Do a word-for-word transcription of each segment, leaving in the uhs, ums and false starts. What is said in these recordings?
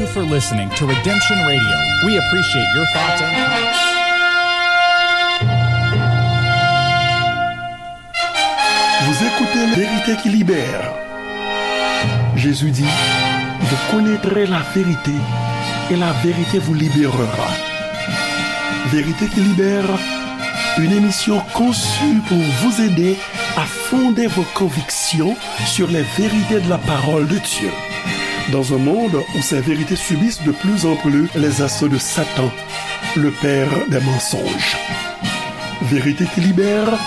Thank you for listening to Redemption Radio. We appreciate your thoughts and comments. Vous écoutez La Vérité qui libère. Jésus dit, vous connaîtrez la vérité et la vérité vous libérera. Vérité qui libère, une émission conçue pour vous aider à fonder vos convictions sur les vérités de la parole de Dieu. Dans un monde où ces vérités subissent de plus en plus les assauts de Satan, le père des mensonges. Vérité qui libère,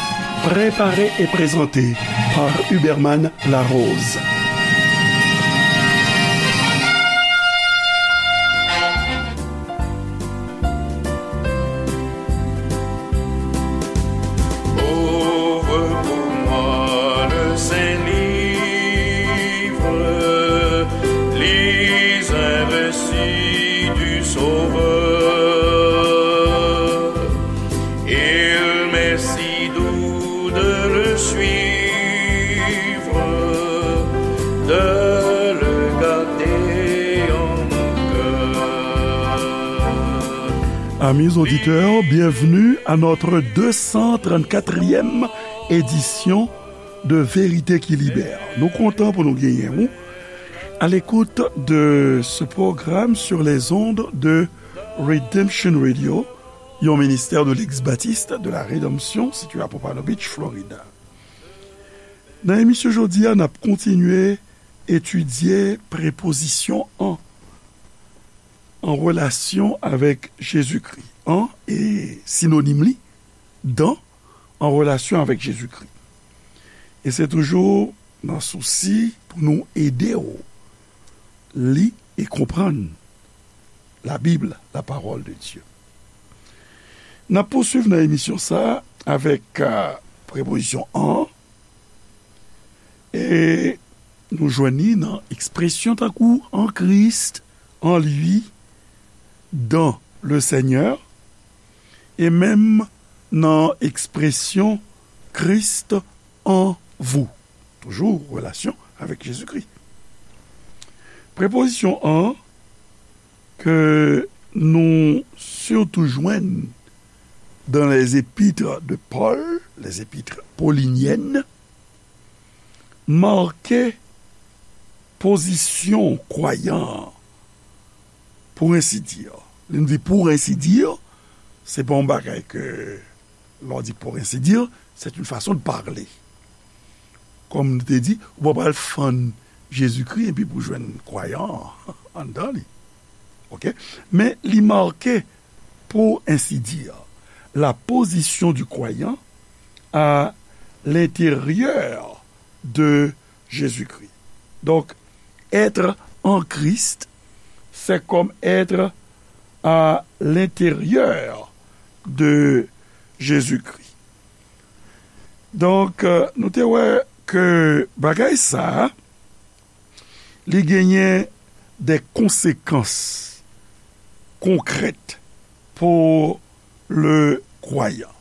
préparée et présentée par Huberman Larose. Ouvre pour moi le Saint-Livre, lis un récit du Sauveur. Il m'est si doux de le suivre, de le garder en mon cœur. Amis auditeurs, bienvenue à notre deux cent trente-quatrième édition de Vérité qui Libère. Nou kontan pou nou genyen ou à l'écoute de ce programme sur les ondes de Redemption Radio, yon ministè de l'ex-baptiste de la Rédemption, situé à Pompano Beach, Florida. Nan emisyon jodi a, n ap kontinye etidye prepozisyon an, an relasyon avèk Jezikri. An e sinonim li, dan, an relasyon avèk Jezikri. E se toujou nan sousi pou nou ede w li e konprann Labib, la parole de Dieu. N ap pouswiv nan emisyon sa a avèk, euh, prepozisyon an, e nou jwenn li nan ekspresyon tankou en Christ, en lui, dans le Seigneur, e menm nan ekspresyon Christ en vous. Toujou relasyon avèk Jezikri. Prepozisyon an ke nou sitou jwenn dans les épîtres de Paul, les épîtres pauliniennes, make pozisyon kwayan an, pour ainsi dire. Lè n di pour ainsi dire, se pa yon bagay ke, lè w di pour ainsi dire, c'est une façon de parler. Kòm nou te di, ou pa pral fann Jezikri epi pou jwenn kwayan an anndan li. Oke? Men li make, pour ainsi dire, la position du croyant à l'intérieur de Jésus-Christ. Donc, être en Christ, c'est comme être à l'intérieur de Jésus-Christ. Donk, euh, nou te wè ke bagay sa a, li genyen de konsekans konkrèt pou le kwayan.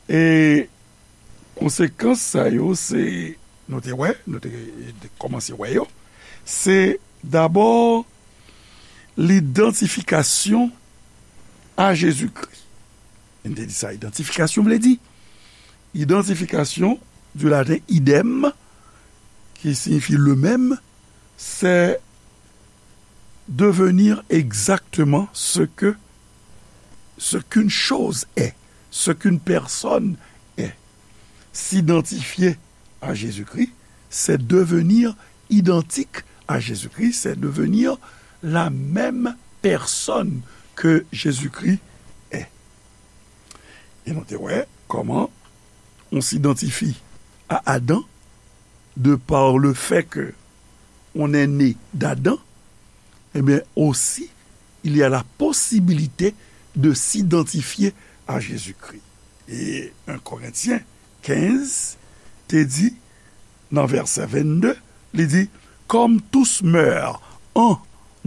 E konsekans sa yo, se, nou te wè, nou te, te kòmanse wè yo, se dabò lidantifikasyon a Jezikri. M te di sa, idantifikasyon vle di, idantifikasyon, du latin idem, qui signifie le même, c'est devenir exactement ce que, ce qu'une chose est, ce qu'une personne est. S'identifier à Jésus-Christ, c'est devenir identique à Jésus-Christ, c'est devenir la même personne que Jésus-Christ est. E nou te wè kòman on s'identifie à Adam de par le fait que on est né d'Adam, eh bien aussi, il y a la possibilité de s'identifier à Jésus-Christ. E un Korentyen kenz te di, nan vèsè vennde, li di, comme tous meurent en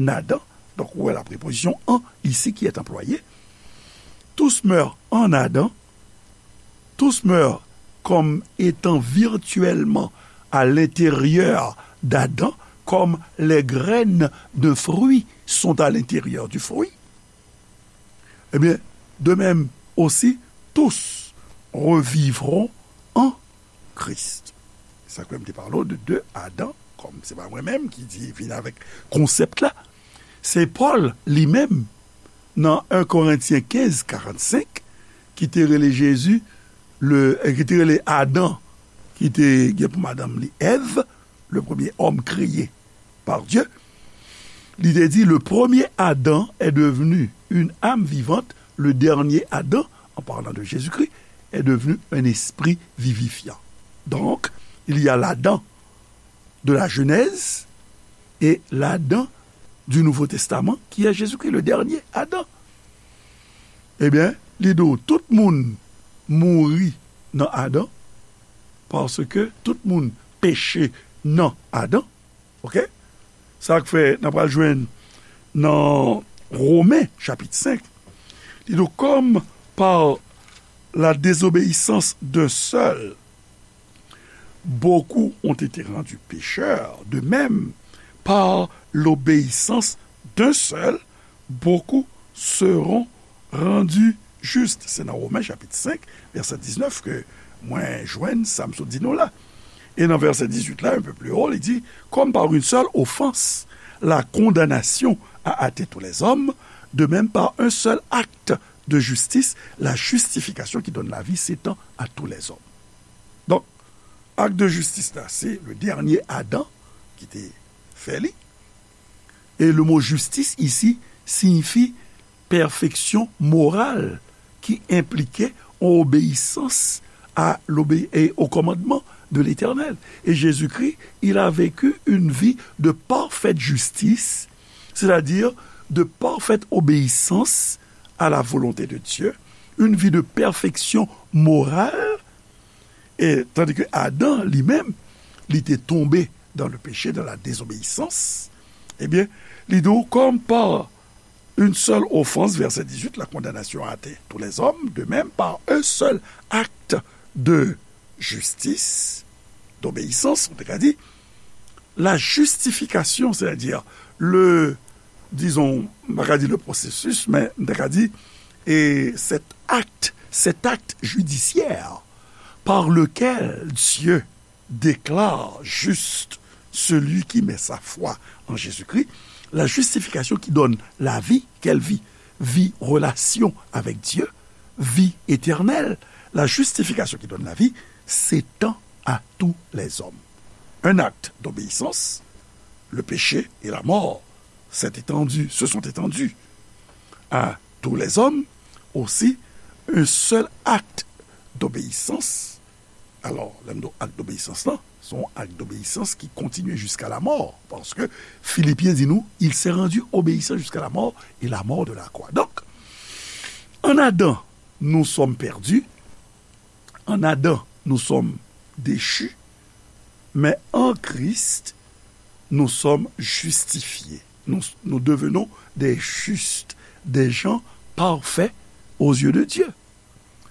Adam, donc ou wè la préposition en ici qui est employée, tous meurent en Adam, tous meurent comme étant virtuellement à l'intérieur d'Adam, comme les graines d'un fruit sont à l'intérieur du fruit, eh bien, de même aussi, tous revivront en Christ. Sa k fè m te pale w de de Adan, kòm se pa mwen menm ki di vin avèk konsèp la, se Pòl li menm nan en Korentyen kenz karannsenk ki te rele Jezi, le, ki te rele Adan, ki te gen pou madanm li Èv, le premier homme créé par Dieu, li te di, le premier Adam est devenu une âme vivante, le dernier Adam, en parlant de Jésus-Christ, est devenu un esprit vivifiant. Donc, il y a l'Adam de la Genèse et l'Adam du Nouveau Testament, qui est Jésus-Christ, le dernier Adam. Ebyen, li di w, tout moun mouri nan Adan, paske tout moun peche nan Adan. Oke? Sa k fè n ap pral jwenn nan Women, chapit senk, li di w, comme par la désobéissance d'un seul, beaucoup ont été rendus pécheurs, de même, par l'obéissance d'un seul, beaucoup seront rendus justes. Se nan Women chapit senk, vèsè diznèf ke mwen jwenn sa m sot di nou la. E nan vèsè dizuit la, un peu plus haut, li di, comme par une seule offense, la condamnation a hâté tous les hommes, de même par un seul acte de justice, la justification qui donne la vie s'étend à tous les hommes. Donk, ak de jistis la, se le dènye Adan ki te fè li. E le mo jistis isi siyifi pèfeksyon moral ki enplike yon obeyisans a l'obé- et au commandement de l'Éternel. Et Jésus-Christ, il a vécu une vie de parfaite justice, c'est-à-dire de parfaite obéissance à la volonté de Dieu, une vie de perfection morale, e tandis que Adam, li menm, li te tonbe dans le péché, dans la désobéissance, ebyen, li di w, comme par une seule offense, verset dix-huit, la condamnation a hâté tous les hommes, de même, par un seul acte de justice, d'obéissance, on te ka di, la justification, c'est-à-dire le, disons, m pa ka di le processus, men m ta ka di, et cet acte, cet acte judiciaire par lequel Dieu déclare juste celui qui met sa foi en Jésus-Christ, la justification qui donne la vie, quelle vie? Vie, relation avec Dieu, vie éternelle. La justification qui donne la vie s'étend à tous les hommes. Un acte d'obéissance, le péché et la mort s'est étendu, se sont étendus à tous les hommes. Aussi, un seul acte d'obéissance. Alò, lè m di w ak d'obéissance la, se yon ak d'obéissance qui continue jusqu'à la mort. Parce que Philippiens dit nous, il s'est rendu obéissant jusqu'à la mort et la mort de la croix. Donc, en Adam, nous sommes perdus. En Adam, nous sommes déchus. Mais en Christ, nous sommes justifiés. Nous, nous devenons des justes, des gens parfaits aux yeux de Dieu.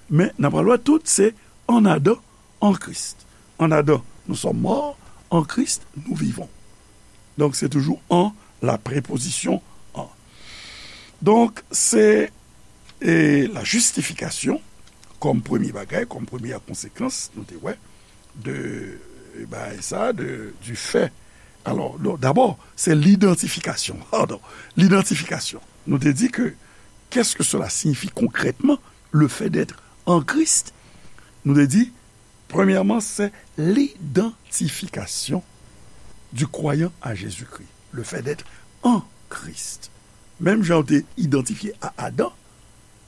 Men, n ap pral wè tout, se en Adam, en Christ. En Adam, nous sommes morts, en Christ, nous vivons. Donk, se toujou en, la préposition en. Donk, se, e, la justification, kòm premye bagay, kòm premyè konsekans, nou te wè, de, e, bagay sa, de, du fait. Alors, non, d'abord, c'est l'identification. Pardon, l'identification. Nou te di ke, qu'est-ce que cela signifie concrètement, le fait d'être en Christ? Nou te di, premyèman, c'est l'identification du croyant à Jésus-Christ, le fait d'être en Christ. Menm jan w te idantifye a Adan,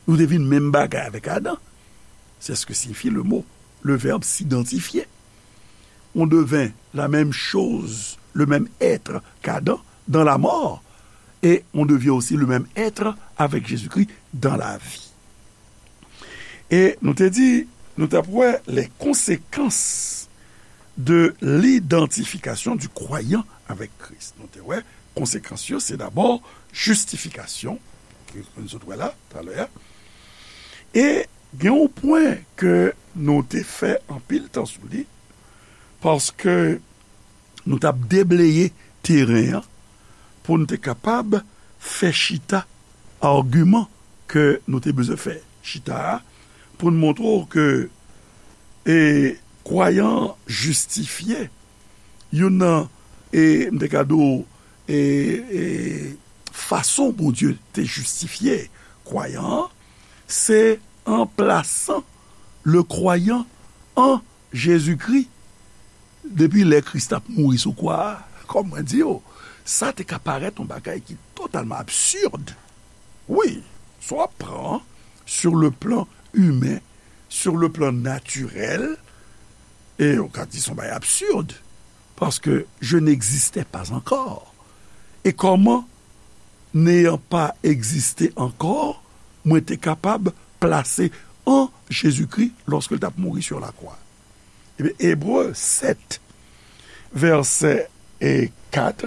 nou te vin menm bagay avèk Adan. C'est ce que signifie le mot, le verbe s'identifier. On devint la même chose, le même être qu'Adam dans la mort, et on devient aussi le même être avec Jésus-Christ dans la vie. E nou te di, nou t ap wè les conséquences de l'identification du croyant avec Christ. Nou te wè konsekans yo, se dabò jistifikasyon, ke nou sot wè la, talè a. E gen yon pwen ke nou te fè anpil tan sou li, paske nou t ap debleye teren an pou n te kapab fè chita agiman ke nou te bezwen fè chita a, pou n montre w ke e, kwayan an jistifye. Youn nan, e, m te ka di w, e, e, fason Bondye te jistifye kwayan an, se an plasan le croyant an Jezikri depi lè Kris t ap mouri sou kwa a. Kòm mwen di w, sa te ka parèt yon bagay ki totalman absid. Wi, sa w ap pran sur le plan imen, sur le plan natirèl, e w ka di se yon bagay absid, paske je n'existais pas encore. E kòman, n'ayant pas existé encore, mwen te kapab plase an Jezikri lòske l t ap mouri sur la croix? Ebyen, Ebre sèt, vèsè e kat,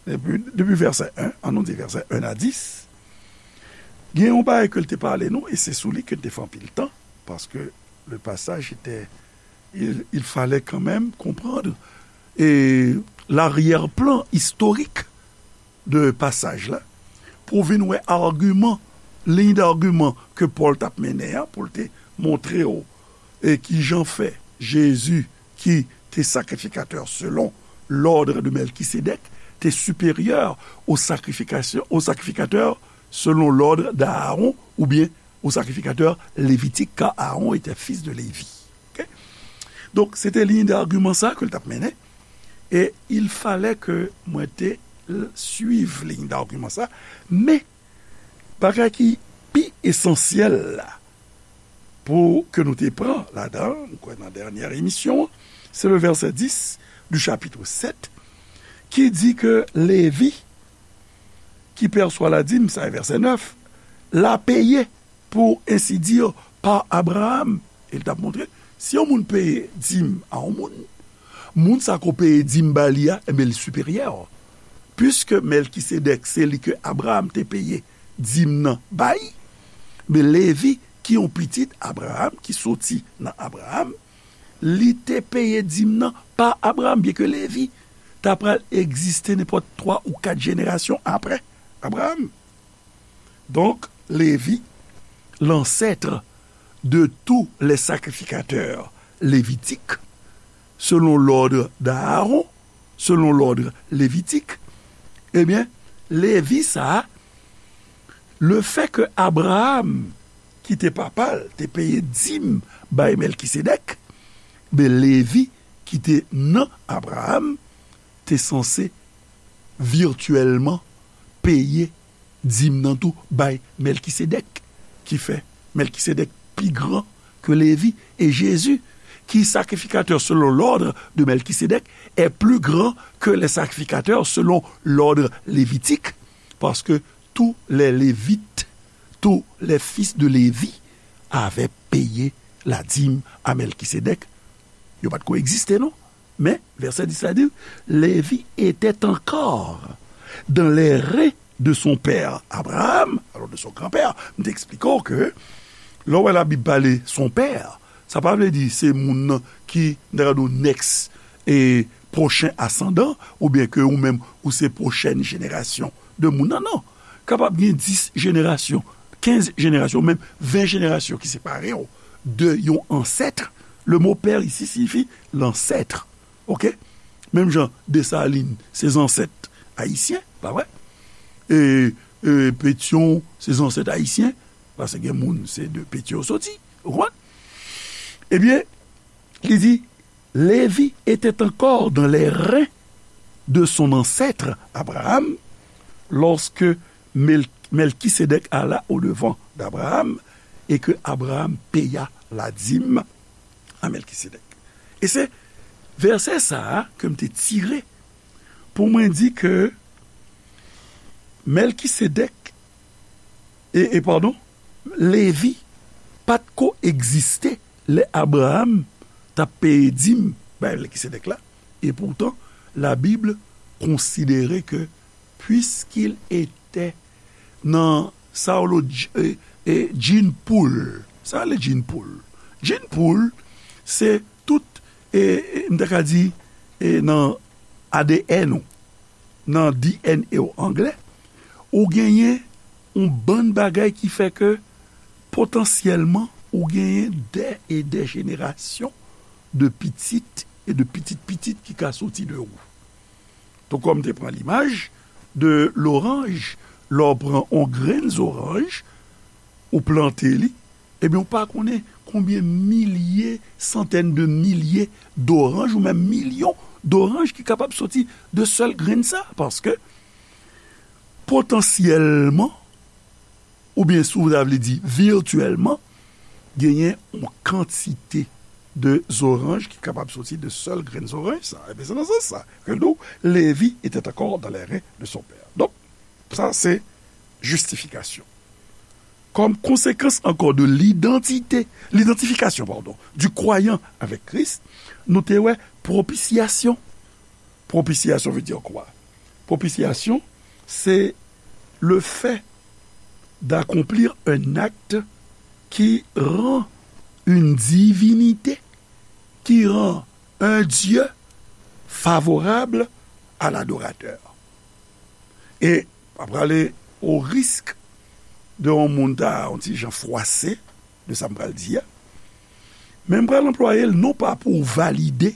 depi, depi vèsè en, ann nou di vèsè en a dis, gen yon bagay ke l te pale nou, e se sou li ke n te fè anpil tan, paske le passage était, il, il fallait quand même comprendre e laryè plan istorik de pasaj la, pou w vin wè agiman, liy d'agiman ke Pòl t ap mennen an, pou l te montre w e kijan fè Jezi, ki te sakrifikatè selon l'ordre de Melkisedèk, te siperyè au sacrification, au sacrificateur selon l'ordre d'Aaron, oubyen au sacrificateur lévitique, car Aaron était fils de Lévi. Ok? Donk, se te liy d'agiman sa ke l t ap mennen. E il fallait ke mwen te l-, suiv liy d'agiman sa. Men, bagay ki pi esansyèl la, pou ke nou te pran ladan, m kwè nan dènyè emisyon an, se le verset dix du chapitre sept, ki di ke Levi, qui perçoit la dîme, sa e vèsè nèf, l'a payé, pour ainsi dire, par Abraham. E l t ap montre, si yon moun peye dim a yon moun, moun sa ko peye dim ba li a, enben, li siperyè. Piske Mèlkisedèk, se li ke Abraham te peye dim nan bay, men Levi, ki yon pitit Abraham, ki soti nan Abraham, li te peye dim nan pa Abraham, byenke Levi ta pral egziste nenpòt twa ou kat jenerasyon apre Abraham. Donc, Lévi, l'ancêtre de tous les sacrificateurs lévitiques, selon l'ordre d'Aaron, selon l'ordre lévitique, ebyen, Levi sa a, le fait que Abraham, ki te papa l, te peye dim bay Mèlkisedèk, ben, Levi, ki te nan Abraham, te sanse vityèlman peye dim nan tou bay Mèlkisedèk, ki fè Mèlkisedèk pi gran ke Levi. Et Jésus, qui sacrificateur selon l'ordre de Melchizedek, est plus grand que les sacrificateurs selon l'ordre lévitique, parce que tous les Lévites, tous les fils de Lévi avaient payé la dîme à Melchizedek. Yo pa t ko egziste, non. Men, vèsè dis la di, Levi était encore dans les reins de son père Abraham, alors de son grand-père. M te eksplike w ke lè w wè Labib pale son père, sa pa vle di se moun nan ki, n ta ka di w, next e pwochen asandan, oubyen ke ou menm ou se pwochèn jenerasyon de moun nan, non. Kapab gen dis jenerasyon, kenz jenerasyon, menm ven jenerasyon ki separe w de yon ansèt. Le mot père ici signifie l'ancêtre. Ok? Menm jan Desalin se zansèt ayisyen, pa vre? E, e Petyon se zansèt ayisyen, paske gen moun se de Petyon yo soti, ou konprann? Ebyen, li di, Lévi était encore dans les reins de son ancêtre Abraham lorsque Mel-, Melchisédek alla au-devant d'Abraham et que Abraham paya la dîme à Melchisédek. E se vèsè sa a ke m te tire pou mwen di ke Melchisédek, e, e padon, Levi pa t ko egziste lè Abraham t ap peye dim bay Melchisédek la. E poutan, la Bible konsidere ke puisqu'il était nan sa yo rele dj-, e, e, gene pool. Sa yo rele gene pool. Gene pool, se tout, e, e, m ta ka di, e, nan A D N ou. nan D N A w anglè, ou genyen yon bann bagay ki fè ke potansyèlman ou genyen dè e dè jenerasyon de pitit e de pitit pitit ki ka soti de ou. Tou kòm te pran limaj de loranj, lè w pran yon grenn zoranj, ou plante li, ebyen, ou pa konnen konbyen milye, santèn de milye doranj, ou menm milyon doranj ki kapab soti de sèl grenn sa, paske potansyèlman, oubyen si w ta vle di vityèlman, genyen yon kantite de zoranj ki kapab soti de sèl grenn zoranj sa. Ebyen, se nan sans sa ke nou, Lévi était encore dans les reins de son père. Donk, sa se jistifikasyon. Comme conséquence encore de l'identité, l'identification, pardon, du croyant avec Christ, nou te wè propisyasyon. Propisyasyon veut dire quoi? Propisyasyon, c'est le fait d'accomplir un acte qui rend une divinité, qui rend un Dieu favorable à l'adorateur. E pa prale o risk de yon moun ta yon ti jan fwase de sa m pral di a. Men m pral anplwaye l non pa pou valide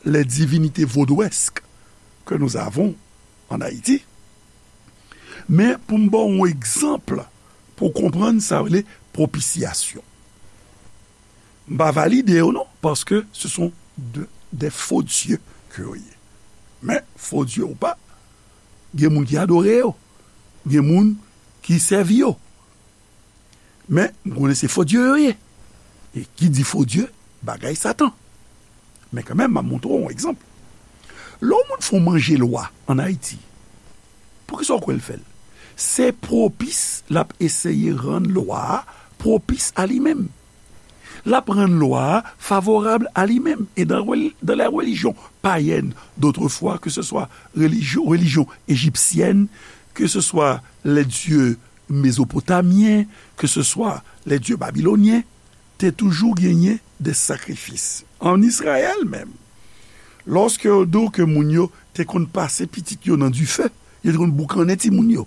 les divinités vaudouesques que nous avons en Haïti, men pou m ba w yon egzanp pou w konprann sa rele propisyasyon. M pa valide yo non, paske ce sont de, des faux dieux que yo ye. Men, faux dieux ou pa, gen moun ki adore yo, gen moun ki sèvi yo. Men, m konnen se fo dye yo ye. E ki di fo dye, bagay Satan. Men kanmenm, m ap montre w yon egzanp. Lè yon moun fè yon manje lwa ann Ayiti, poukisa w kwè l fè l? Se pwopis l ap eseye rann lwa a pwopis a li menm. L ap rann lwa a favorab a li menm. Et dans, dans les religions païennes d'autrefois, que ce soit religion, religion égyptienne, que ce soit les dieux mésopotamien, que ce soit les dieux babyloniens, te toujou genyen de sakrifis. Ann Izrayèl menm, lòske yo di w ke moun yo te konn pase pitit yo nan dife, yo te konn boukannen timoun yo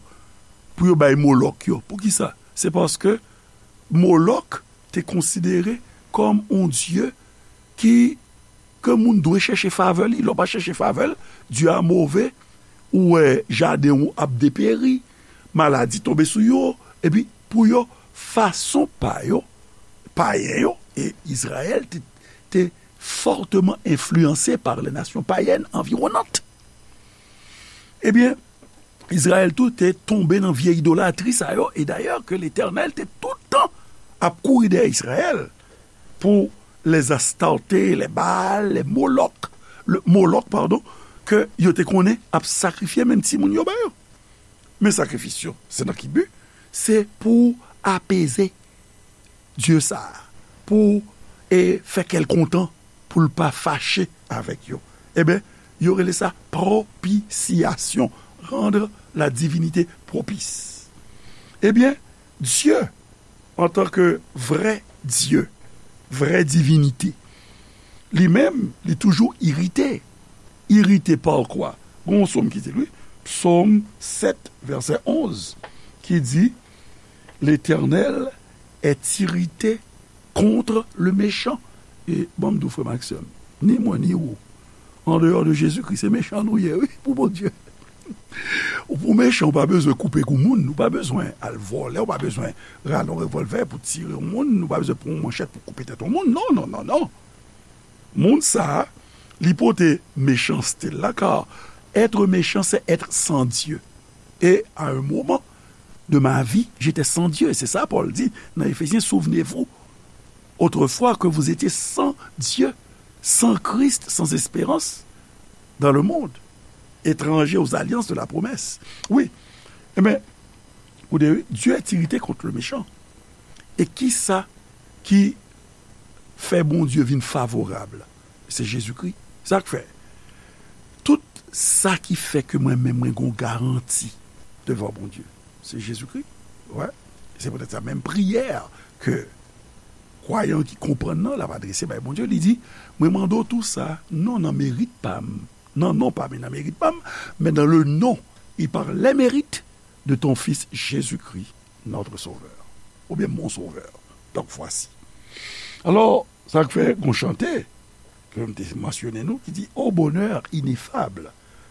pou yo bay Molòk yo. Poukisa? Se paske Molòk te konsidere kòm yon dye ki, ke moun dwe chèche favè li. Lè w pa chèche favè l, dye a move, ou wè jaden w ap deperi, maladi tonbe sou yo, epi pou yo, fason pa yo, payen yo, e Izrayèl te, te fortement influencé par les nations païennes environnantes. Ebyen, Izrayèl tou te tonbe nan vye idolatri sa yo, e dayè ke Letènèl te tout tan ap kouri dèyè Izrayèl pou les Astarté, les Baal, les Molok, le Molok, padon, ke yo te konnen ap sakrifye menm timoun yo ba yo. Men sakrifis yo, se nan ki bi? Se pou apeze dye sa a, pou, e, fè kè l kontan, pou l pa fache avèk yo. Ebyen, yo rele sa propisyasyon, rendre la divinité propice. Ebyen, Dye, antanke vrè Dye, vrè divinite, li menm, li toujou irite. Irite pa kwa? Gon yon sòm ki di l, wi, Psaume sept, verset onze, ki di, L'Éternel est irrité contre le méchant. E ban m di w, frè m ak sè m, ni mwen ni ou, an deyò de Jezikri, se mechan nou ye, wi, pou Bondye. Ou pou mechan, ou pa bezwen koupe kou moun, ou pa bezwen al vòlè, ou pa bezwen rale yon revòlvè pou tire yon moun, ou pa bezwen pran yon manchèt pou koupe tèt yon moun. Non, non, non, non. Moun sa a, li pote mechanste l la, car être méchant, c'est être sans Dieu. Et à un moment de ma vie, j'étais sans Dieu. C'est ça, Paul dit dans Éphésiens, souvenez-vous, autrefois que vous étiez sans Dieu, sans Christ, sans espérance dans le monde, étrangers aux alliances de la promesse. Wi, ebyen, ou de, Dieu est irrité contre le méchant. E kisa ki fè Bondye vin favorab? Se Jezikri. Sa k fè, tout sa ki fè ke mwen menm mwen gon garanti devan Bondye, se Jezikri. Wè. Se poutèt sa menm priyè ke kwayan ki konprann nan, l ap adrese bay Bondye, li di, mwen mande w tou sa, non nan merit pa m, nan non pa m e nan merit pa m, men dans le nom et par les mérites de ton Fils Jésus-Christ, notre Sauveur. Oubyen mon Sauveur. Donc voici. Alò, sa k fè gon chante ke m te mansyone nou ki di, au bonheur ineffable,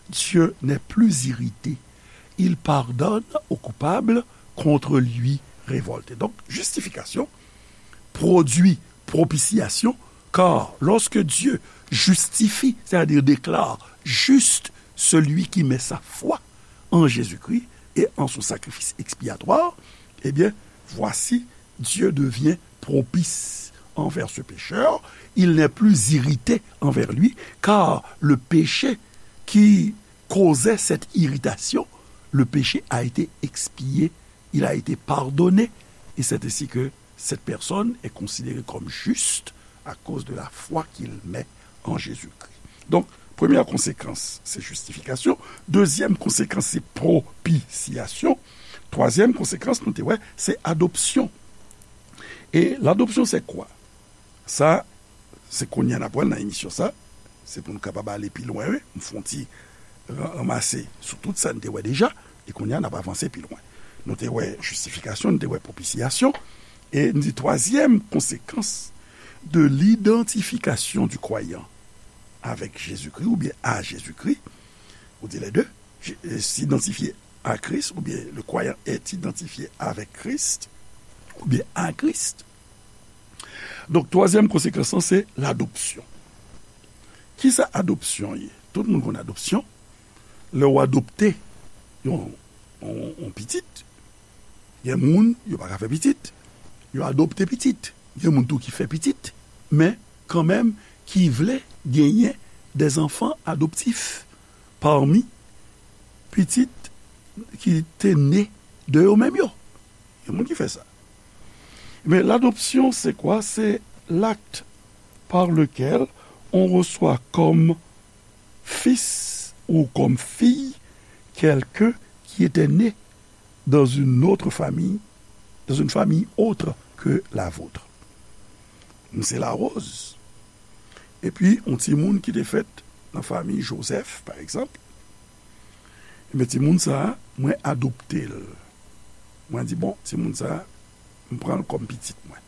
Dieu n'est plus irrité. Il pardonne aux coupables contre lui révoltés. Donc, justification produit propitiation, car lorsque Dieu justifie, c'est-à-dire déclare juste celui qui met sa foi en Jésus-Christ et en son sacrifice expiatoire, eh bien, voici, Dieu devient propice envers ce pécheur, il n'est plus irrité envers lui, car le péché qui causait cette irritation, le péché a été expié, il a été pardonné, et c'est ainsi que cette personne est considérée comme juste à cause de la foi qu'il met en Jésus-Christ. Donc, première conséquence, c'est justification. Deuxième conséquence, c'est propitiation. Troisième conséquence, nou te wè, c'est adoption. Et l'adoption, c'est quoi? Sa, se kounye a n ap wè l nan emisyon sa. Se pou n kapab ale pi lwen, wi. M fè yon ti ra- ranmase sou tout sa n te wè deja. E kounye a, n ap avanse pi lwen. Nou te wè justification, nou te wè propitiation. E n di troisième conséquence de l'identification du croyant avec Jésus-Christ ou bien à Jésus-Christ, ou di les deux, je- euh, s'identifier à Christ, ou bien le croyant est identifié avec Christ, ou bien à Christ. Donk, twazyèm konsekans lan, se ladopsyon. Kisa adopsyon ye? Tout moun konn adopsyon. Lè w adopte yon, yon, yon pitit, gen moun, yo pa ka fè pitit, yo adopte pitit. Gen moun tou ki fè pitit, men kanmenm ki vle genyen des enfants adoptifs parmi pitit ki te ne de yo menm yo. Gen moun ki fè sa. Men l'adoption, c'est quoi? C'est l'acte par lequel on reçoit comme fils ou comme fille quelqu'un qui était né dans une autre famille, dans une famille autre que la vôtre. M se Larose. Epi, yon timoun ki te fèt nan fanmi Joseph, pa egzanp. Ebyen, timoun sa a, mwen adopte l. Mwen di, bon, timoun sa a, m pran l kòm pitit mwen.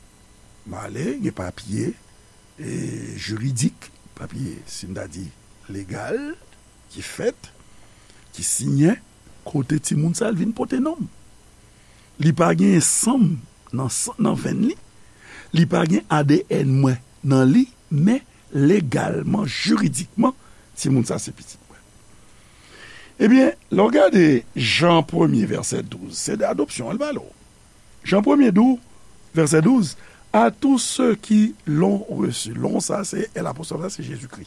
M ale, gen papye, e, jiridik, papye, si n ta di, legal, ki fèt, ki siyen, kote timoun sa a, l vin pote non m. Li pa gen san m nan, san- nan venn li. Li pa gen A D N mwen nan li, men legalman, jiridikman, timoun sa se pitit mwen. Ebyen, lè w gade Jan premye, vèsè douz, se de adopsyon l pale w. Jan premye di w, vèsè douz, à tous ceux qui l'ont reçu. L'ont sa, se L apostwòf la, se Jezikri.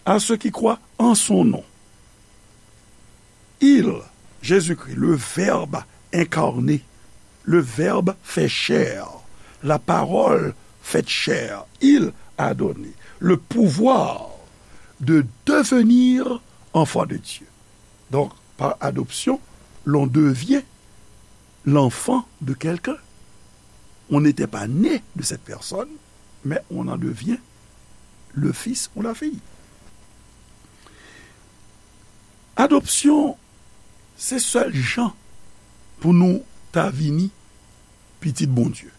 À ceux qui croient en son nom. Il, Jésus-Christ, le Verbe incarné, le Verbe fait chair, la parole faite chair, il a donné le pouvoir de devenir enfant de Dieu. Donc, par adoption, l'on devient l'enfant de quelqu'un. On n'était pas né de cette personne, mais on en devient le fils ou la fille. Adopsyon, se sèl jan pou nou ta vini pitit Bondye.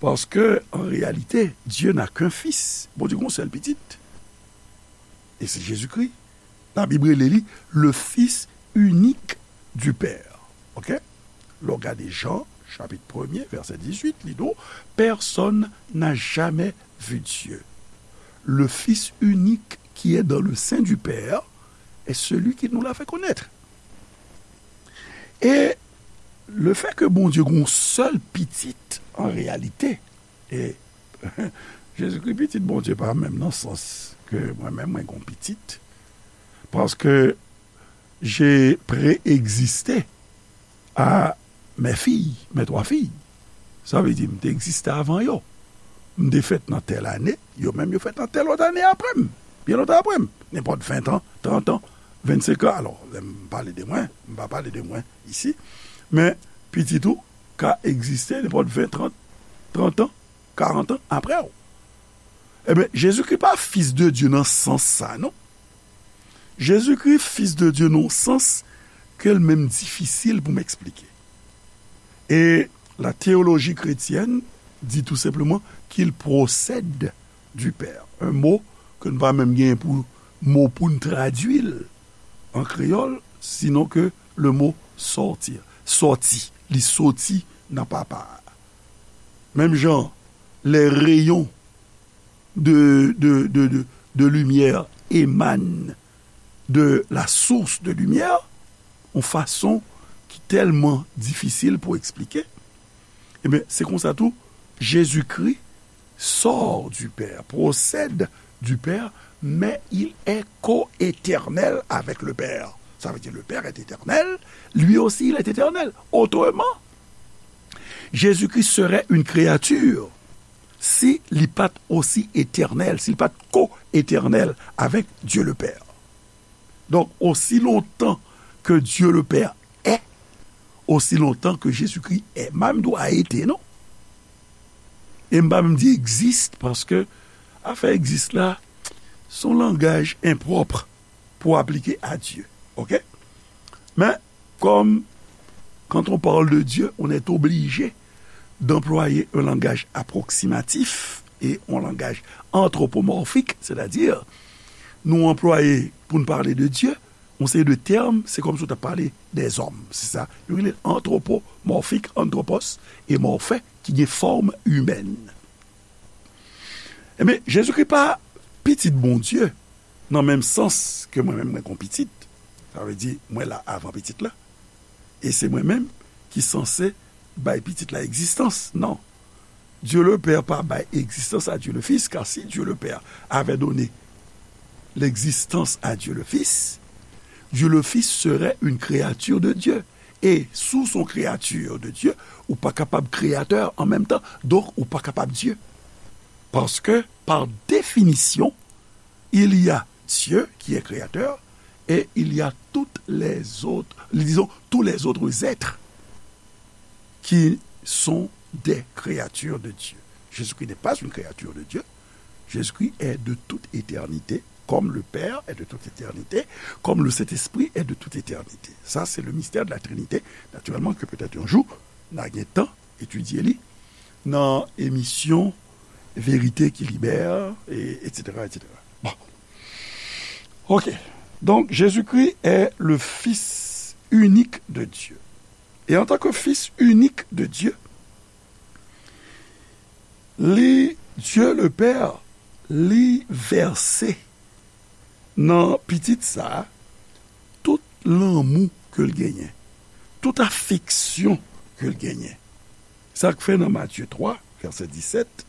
Paske, an reyalite, Dieu n'a qu'un fils. Bondye gen yon sèl pitit. E se Jezikri. Labib rele li le Fils unique du Père. Oke? Lè w gade Jan, chapit premye, vèsè dizuit, li di w, personne n'a jamais vu Dieu. Le Fils unique qui est dans le sein du Père est celui qui nous l'a fait connaître. E lefètke Bondye gen yon sèl pitit, an reyalite, e Jezikri pitit Bondye pa menm nan sans ke mwen menm mwen gen yon pitit, paske j'ai préexisté à mes filles, mes trois filles. Sa vle di, m te egziste avan yo. M te fèt nan tèl ane, yo menm yo fèt nan tèl lòt ane apre m. Byen lontan apre m. Nenpòt ven an, trant an, vennsenk an. Alò, lè m pale de mwen, m pa pale de mwen isi. Men, pitit ou ka egziste nenpòt ven, trant, trant an, karant an apre w. Ebyen, Jezikri pa Fis de Dye nan sans sa, non. Jezikri Fis de Dye nan sans ke l menm difisil pou m eksplike. E la théologie chrétienne dit tout simplement qu'il procède du Père. Un mot ke n pa menm gen pou mo pou n tradui l an kreyòl, sinon ke le mot sortir. Sòti, li sòti nan Papa a. Menm jan, les rayons de, de, de, de, de lumière émanent de la source de lumière, yon fason ki tèlman difisil pou eksplike. Ebyen, se konsa tou, Jezikri sort du Père, procède du Père, mais il est co-éternel avec le Père. Ça veut dire le Père est éternel, lui aussi il est éternel. Autrement, Jésus-Christ serait une créature si li pa t osi etènèl, si li pa t ko-etènèl avèk Dieu le Père. Donk, osi lontan ke Dieu le Père est, osi lontan ke Jezikri est. M pa menm di w a été, non. E m pa menm di existe, paske afè existe la, se yon langaj enpwòp pou aplike a Dye. Oke? Men, comme quand on parle de Dieu, on est obligé d'employer un langage approximatif et un langage anthropomorphique, c'est-à-dire, nou anplwaye pou n pale de Dye, yon seri de tèm, se kòmsi w t ap pale dèzòm, se sa. Yo rele anthropomorphique, anthropos, e morphe, ki gen fòm imèn. Ebyen, Jezikri pa pitit Bondye, nan menm sans ke mwen menm mwen gon pitit. Sa vle di, mwen la avan pitit la. E se mwen menm ki sanse bay pitit la egzistans. Non. Dieu le Père pa bay egzistans a Dieu le Fils, car si Dieu le Père avait donné l'existence à Dieu le Fils, Dieu le Fils serait une créature de Dieu. Et si w se yon créature de Dieu, ou pa kapab créateur en même temps, donc ou pa kapab Dieu. Parce que, par définition, il y a Dieu qui est créateur et il y a toutes les autres, disons, tous les autres êtres qui sont des créatures de Dieu. Jésus-Christ n'est pas une créature de Dieu. Jésus-Christ est de toute éternité, comme le Père est de toute éternité, comme le Saint-Esprit est de toute éternité. Ça, c'est le mystère de la Trinité, naturellement, que peut-être un jour, n a gen tan etidye li nan emisyon Vérité qui libère, et, et cetera, et cetera. Bon. Ok. Donc, Jésus-Christ est le Fils unique de Dieu. Et en tant que Fils unique de Dieu, li, Dieu le Père, li vèse nan pitit sa a tout lanmou ke l genyen, tout afeksyon ke l genyen. Sa k fè nan Matye twa, vèsè disèt,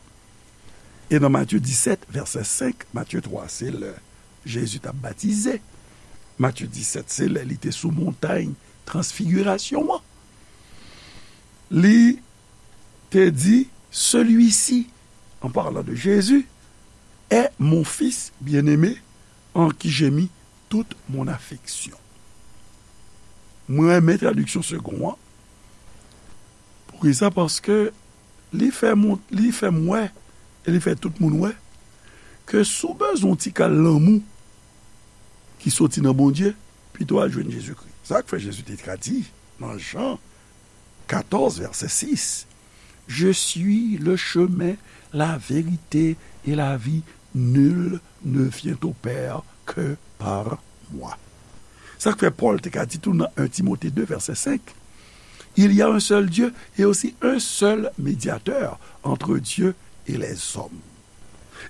e nan Matye disèt, vèsè senk, Matye twa, se lè Jezi t ap batize. Matye disèt, se lè li te sou montay transfigirasyon an. Li te di, celui-ci, en parlant de Jésus, est mon fils bien-aimé, en qui j'ai mis toute mon affection. Mwen renmen tradiksyon Segond an. Poukisa? Paske li fè m, li fè m wè, e li fè tout moun wè, ke si w bezwen yon ti kal lanmou ki soti nan Bondye, pito al jwenn Jezikri. Sa k fè Jezi te ka di nan Jan katòz, vèsè sis, Je suis le chemin, la vérité et la vie. Nul ne vient au Père que par moi. Sa k fè Pòl te ka di tou nan en Timote de, vèsè senk, Il y a un seul Dieu et aussi un seul médiateur entre Dieu et les hommes.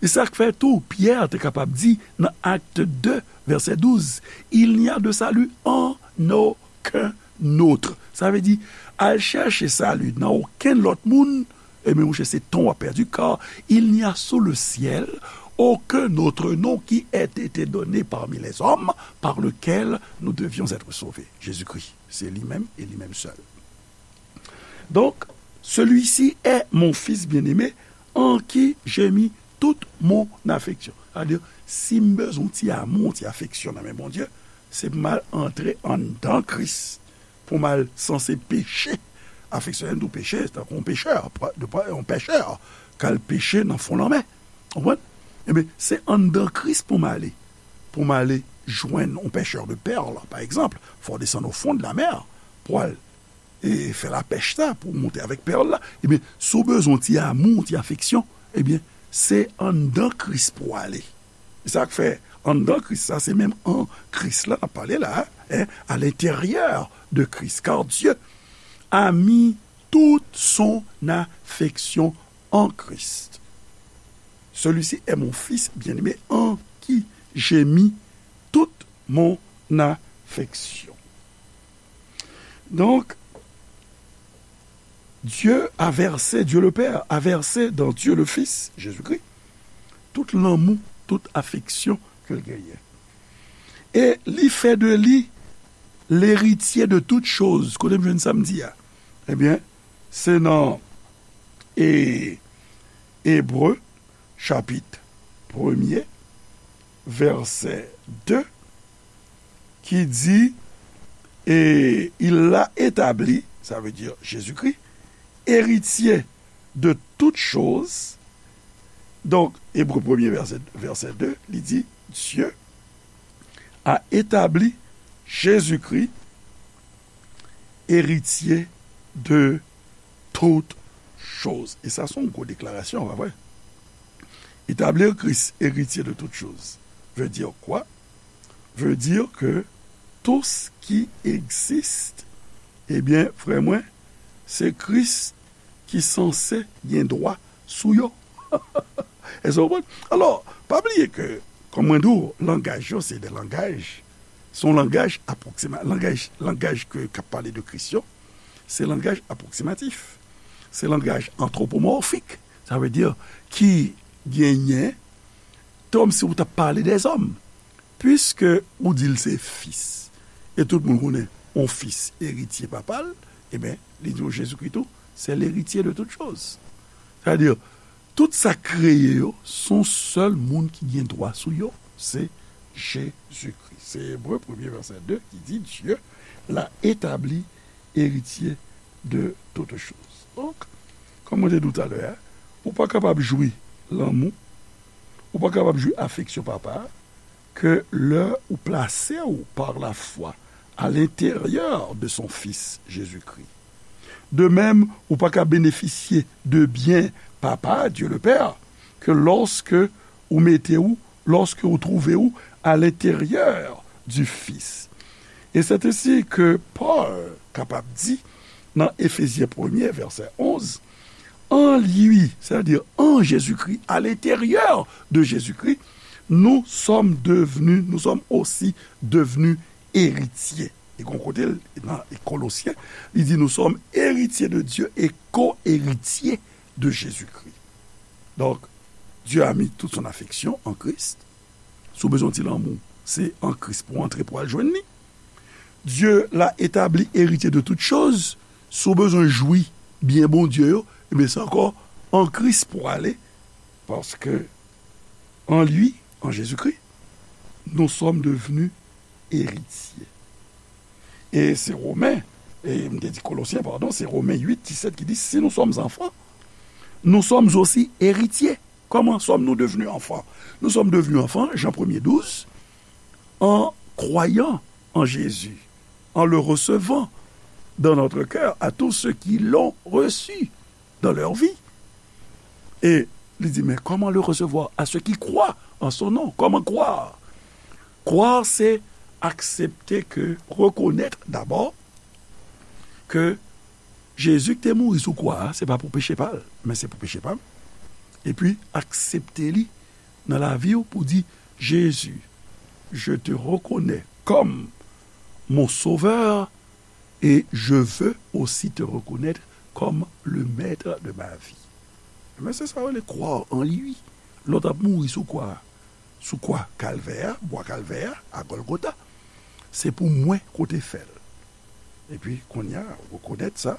E sa k fè tou Pyè te kapab di nan Acte deux, vèsè douz, Il n'y a de salut en aucun autre. Sa vle di, al chèche sali nan okenn lòt moun, ebyen, monchè, se tan w ap pèdi, car il n'y a sous le ciel aucun autre nom qui ait été donné parmi les hommes par lequel nous devions être sauvés. Jésus-Christ, se li menm e li menm sèl. Donc, celui-ci est mon fils bien-aimé, en qui j'ai mis toute mon affection. Sa vle di, si m bezwen yon ti amou, yon ti afeksyon nan men Bondye, se pou m al antre anndan Kris, pou m al sanse peche. Afeksyone tou peche, tankou yon pechè, de pa yon pechè, k al peche nan fon lanmè. Konprann? Ebyen, se anndan Kris pou m ale. Pou m ale jwenn yon pêcheur de perles, pa egzanp, fò w desann au fond de la mer pou al e fè lapèch sa, pou w monte avèk pèl la, ebyen, si w bezwen yon ti amou, yon ti afeksyon, ebyen, se anndan Kris pou w ale. E sa k fè, anndan Kris, sa se menm an Kris la n ap pale la, hein, à l'intérieur de Christ, car Dieu a mis toute son affection en Christ. Celui-ci est mon fils bien-aimé en qui j'ai mis toute mon affection. Donc, Dieu a versé, Dieu le Père a versé dans Dieu le Fils, Jésus-Christ, tout lanmou, tout afeksyon ke l genyen. E li fè de li l'héritier de toutes choses. Kote m jwenn sa m di a? Ebyen, se nan e, Ebre, chapit premye, vèsè de, ki di, et il l'a établi, sa vle di Jezikri, eritye de tout choz. Donk, Ebre premye, vèsè, vèsè de, li di, Dieu a établi Jésus-Christ, héritier de toutes choses. E sa, se yon gwo deklarasyon, pa vre? Établir Christ héritier de toutes choses veut dire quoi? Veut dire que tout ce qui existe, ebyen, frè mwen, se Kris ki sanse gen dwa sou yo. Èske w konprann? Alò, pa bliye ke, kòm mwen di w, langaj yo se de langaj, se yon langaj apwoksima-, langaj, langaj ke, k ap pale de Kris yo, se langaj apwoksimatif. Se langaj antwopomòfik. Sa vle di ki genyen, kòmsi ou t ap pale dèzòm. Piske ou di l se fis, e tout moun konnen yon fis eritye papa l, ebyen, li di w Jezikri tou, se l'héritier de toutes choses. Sa vle di, tout sa k kreye yo, se yon sèl moun ki gen dwa sou yo, se Jezikri. Se Ebre premye vèsè de ki di, Dieu l'a établi héritier de toutes choses. Donk, kòm mwen te di w talè a, ou pa kapab jwi lanmou, ou pa kapab jwi afeksyon papa a, ke lè ou plase w par la foi à l'intérieur de son Fils Jésus-Christ. De même, ou pa ka benefisye de byen Papa, Dieu le Père, ke lòske ou mete w, lòske ou twouve w à l'intérieur du Fils. Et c'est ainsi que Paul kapab di nan Efezyen premye, vèsè onz, en lui, c'est-à-dire en Jésus-Christ, à l'intérieur de Jésus-Christ, nous sommes devenus, nous sommes aussi devenus héritiers. E gon kote l, nan Kolosyen, li di, nous sommes héritiers de Dieu et co-héritiers de Jésus-Christ. Donc, Dieu a mis toute son affection en Christ. Si w bezwen ti lanmou, se an Kris pou w antre pou w al jwenn li. Dieu l'a établi héritier de toutes choses. Si w bezwen jwi byen Bondye yo, ebyen, se ankò an Kris pou w ale. Paske en lui, en Jésus-Christ, nous sommes devenus héritiers. E se Women, e m te di Kolosyen, padon, se Women uit disèt ki di, si nous sommes enfants, nous sommes aussi héritiers. Comment sommes-nous devenus enfants? Nous sommes devenus enfants, Jean premye douz, en croyant en Jésus, en le recevant dans notre cœur, à tous ceux qui l'ont reçu dans leur vie. E li di, mais comment le recevoir? À ceux qui croient en son nom. Comment croire? Croire, se aksepte ke, rekonèt dabò ke Jezi ki te mouri sou kwa a, se pa pou peche pa l, men se pou peche pa m. Epi, aksepte li nan lavi w pou di, Jésus, je te reconnais comme mon sauveur et je veux aussi te reconnaître comme le maître de ma vie. Men se sa yo rele croire en lui. Lè w t ap mouri sou kwa, sou kwa Kalvè a, bwa Kalvè a, a Gòlgota, se pou mwen ke w te fè l. Epi, kounye a, ou rekonèt sa.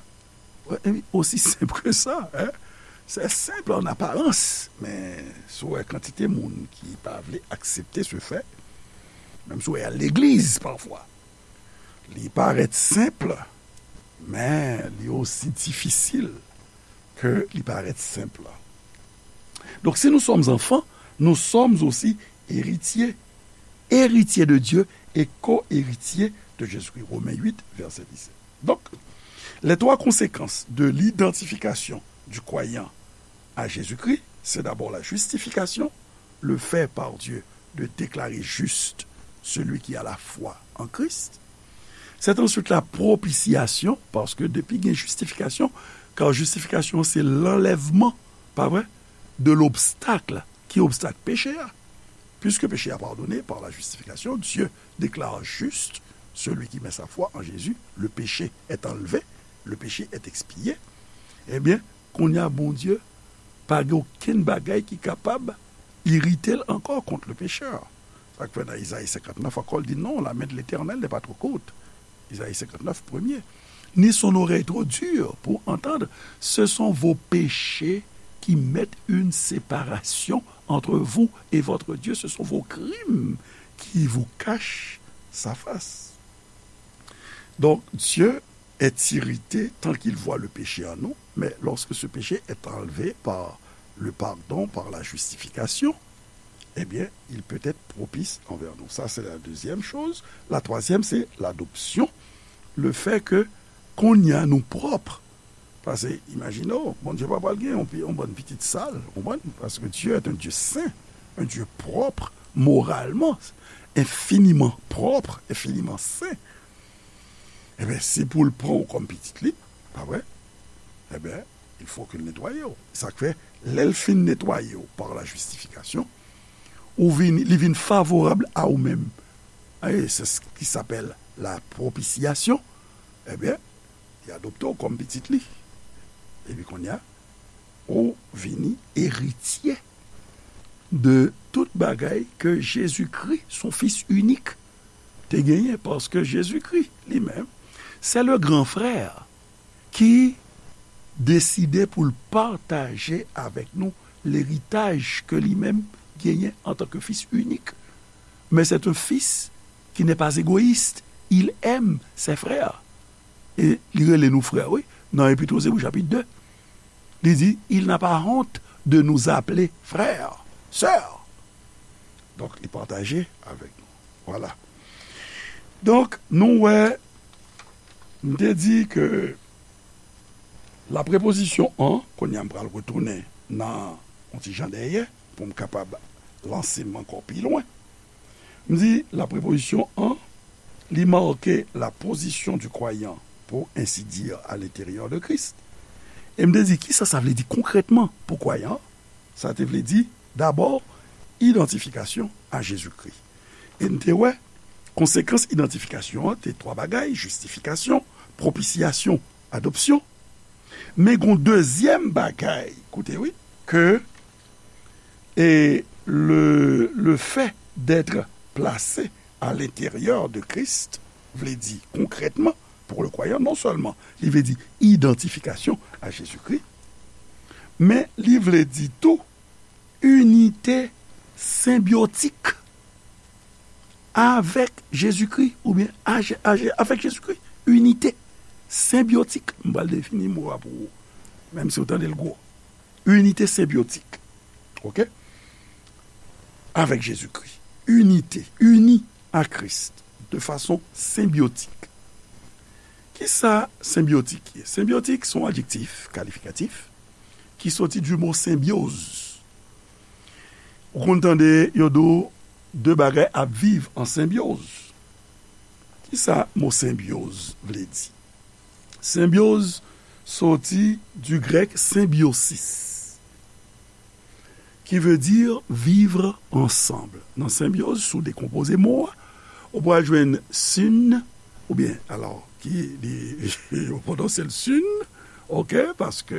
Wi, aussi simple que ça, hein? C'est simple en apparence, men si w wè kantite moun ki pa vle aksepte ce fait, menm si w wè y al legliz pafwa, li parèt senp, men li osi difisil ke li parèt senp. Donc, si nous sommes enfants, nous sommes aussi héritiers, héritiers de Dieu et co-héritiers de Jésus-Christ. Romains huit, verset dix-sept. Donc, les trois conséquences de l'identification du croyant à Jésus-Christ, c'est d'abord la justification, le fait par Dieu de déclarer juste celui qui a la foi en Christ. C'est ensuite la propitiation, paske depi gen justification, car justification c'est l'enlèvement, pa vre, de l'obstacle. Ki obstak? Péché a. Puisque péché a pardonné par la justification, Dieu déclare juste celui qui met sa foi en Jésus, le péché est enlevé, le péché est expié. Ebyen, kounye a Bondye pa gen okenn bagay ki kapab irite l ankò kont le pécheur. Sa k fè nan Izayi senkantnèf ankò, l di non, la main de l'Éternel n'est pas trop courte. Isaïe cinquante-neuf, premier. Ni son oreille trop dure pour entendre. Ce sont vos péchés qui mettent une séparation entre vous et votre Dieu. Ce sont vos crimes qui vous cachent sa face. Donc, Dieu est irrité tant qu'il voit le péché en nous, mais lorsque ce péché est enlevé par le pardon, par la justification, eh bien, il peut être propice envers nous. Ça, c'est la deuxième chose. La troisième, c'est l'adoption. Le fait que kounye a nou pwòp. Paske, imajine w, Bondye pa pral gen yon, yon bann pitit sal, ou konprann? Paske Dieu est un Dieu saint, un Dieu propre, moralement, infiniment propre, infiniment saint. Ebyen, si pou l pran w kòm pitit li, pa vre? Ebyen, il faut que l netwaye w. Sa k fè, lè l fin netwaye w par la justification, ou vin, li vin favorab a ou menm. E c'est ce qui s'appelle la propitiation. Ebyen, li adopte w kòm pitit li. Epi kounye a, ou vini eritye de tout bagay ke Jezikri, son Fis inik, te genyen, paske Jezikri, li menm, se le gran frè ki deside pou l pataje avèk nou leritaj ke li menm genyen antanke Fis inik. Men c'est un fils qui n'est pas égoïste. Il aime ses frères. E li rele nou frè, wi. Nan Epit Ozeb, chapit de, li di, il n'a pas honte de nous appeler frères, sœurs. Donk, li pataje avèk nou. Vwala. Donk, nou wè, m te di ke la prepozisyon an, kounye a m pral retounen nan yon ti jan dèyè, pou m kapab lanse m ankò pi lwen. M di, la prepozisyon an, li make la position du croyant, pour ainsi dire, à l'intérieur de Christ. E m te di, kisa sa vle di konkrètman pou kwayan an? Sa te vle di, dabò, idantifikasyon a Jezikri. E n te wè, konsekans idantifikasyon an te twa bagay, jistifikasyon, propisyasyon, adopsyon. Men gon dezyèm bagay, koute wi, ke, e, le, le fait d'être placé à l'intérieur de Christ vle di konkrètman, pou le kwayan, non sèlman li vle di idantifikasyon a Jezikri, men li vle di tou inite senbyotik avèk Jezikri, oubyen a Je-, a Je-, avèk Jezikri. Inite senbyotik. M pral defini mo a pou ou, menm si w tande l gwo. Inite senbyotik. Oke? Avèk Jezikri. Inite, ini a Kris de fason senbyotik. Kisa senbyotik ye? Senbyotik se yon adjektif kalifikatif ki soti du mo symbiose. Ou konn tande yo di w de bagay ap viv an senbyoz. Kisa mo senbyoz vle di? Senbyoz soti du grèk symbiosis, qui veut dire vivre ensemble. Nan senbyoz, si w dekonpoze mo a, ou pral jwenn syn, oubyen, alò, ki, li, yo pwononse l syn, oke, paske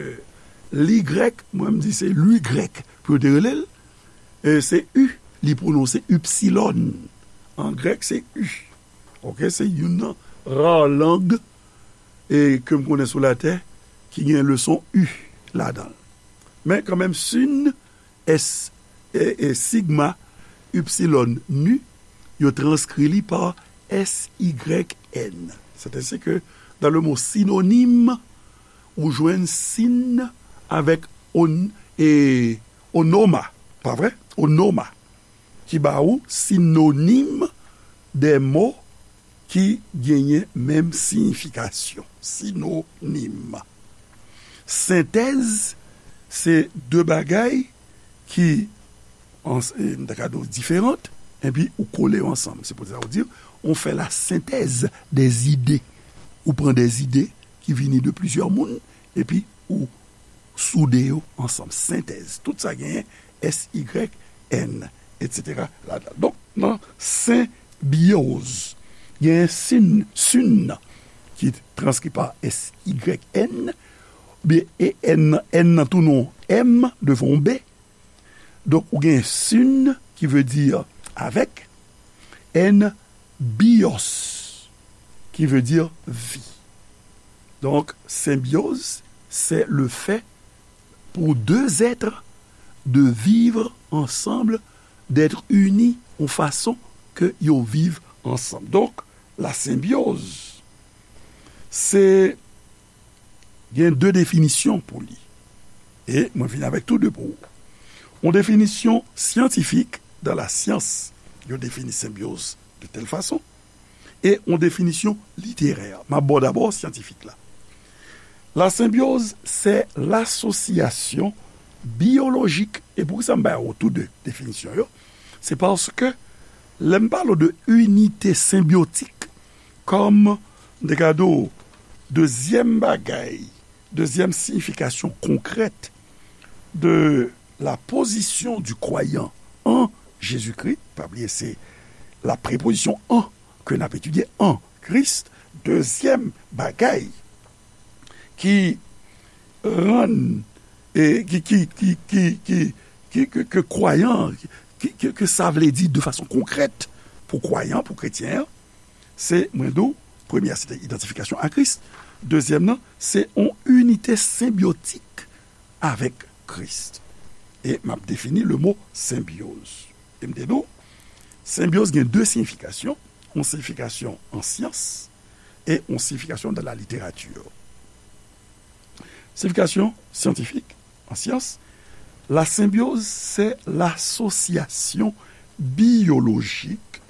li grèk, mwen m di se li grèk pou yo te rele l, e se u, li pwononse ipsilòn. An grèk, se u. Oke, se youn nan ra lang, e, ke m konnen sou latè, ki gen leson u ladan l. Men kanmenm, syn, S, e, e, sigma, ipsilòn, nu, yo transkri li pa S Y N. C'est ainsi que dans le mot synonyme, ou jwenn syn avèk on, e, onoma, pa vre? onoma, ki ba ou sinonim de mo ki genyen menm siyifikasyon. Sinonim. Sentèz, se de bagay ki, an, e, m ta ka di w diferan, epi ou kole yo ansanm. Se pou sa ou di, on fait la synthèse des idées. Ou pran de zide ki vini de plizyè moun, epi ou soude yo ansanm. Sentèz. Tout sa genyen S Y N, et cetera ladan. Donk, nan senbyoz, genyen sin, sin ki transkri pa S Y N, byen, e N, N nan tou non M devan yon B. Donk, ou gen sin ki vle di avèk, N bios ki vle di vi. Donc, symbiose, c'est le fait pour deux êtres de vivre ensemble, d'être unis en façon que yo viv ansanm. Donk, la senbyoz, se gen de definisyon pou li. E mwen vin avèk tou de pou ou. Yon definisyon syantifik, dans la science, yo defini senbyoz de telle façon, e yon definisyon literè. M ap ba w dabò syantifik la. La symbiose, c'est l'association biologique. E poukisa m ba ou tou de definisyon yo? Se paske lè m pale de unité symbiotique, kòm de gade w, dezyèm bagay, dezyèm siyifikasyon konkrèt de la position du croyant en Jésus-Christ, pa bliye se la préposition en ke n ap etidye, en Christ, dezyèm bagay ki rann, e, ki, ki, ki, ki, ki, ki, ke, ke kwayan, ki, ke, ke sa vle di de fason konkrèt pou kwayan, pou kretyen an, se, mwen di w, premye a, se te idantifikasyon a Kris. Dezyèm nan, se yon inite senbyotik avèk Kris. E m ap defini le mo senbyoz. E m te di w, senbyoz gen de siyifikasyon, yon siyifikasyon an syans e yon siyifikasyon dans la littérature. Siyifikasyon syantifik, an syans, la symbiose, c'est l'association biologique,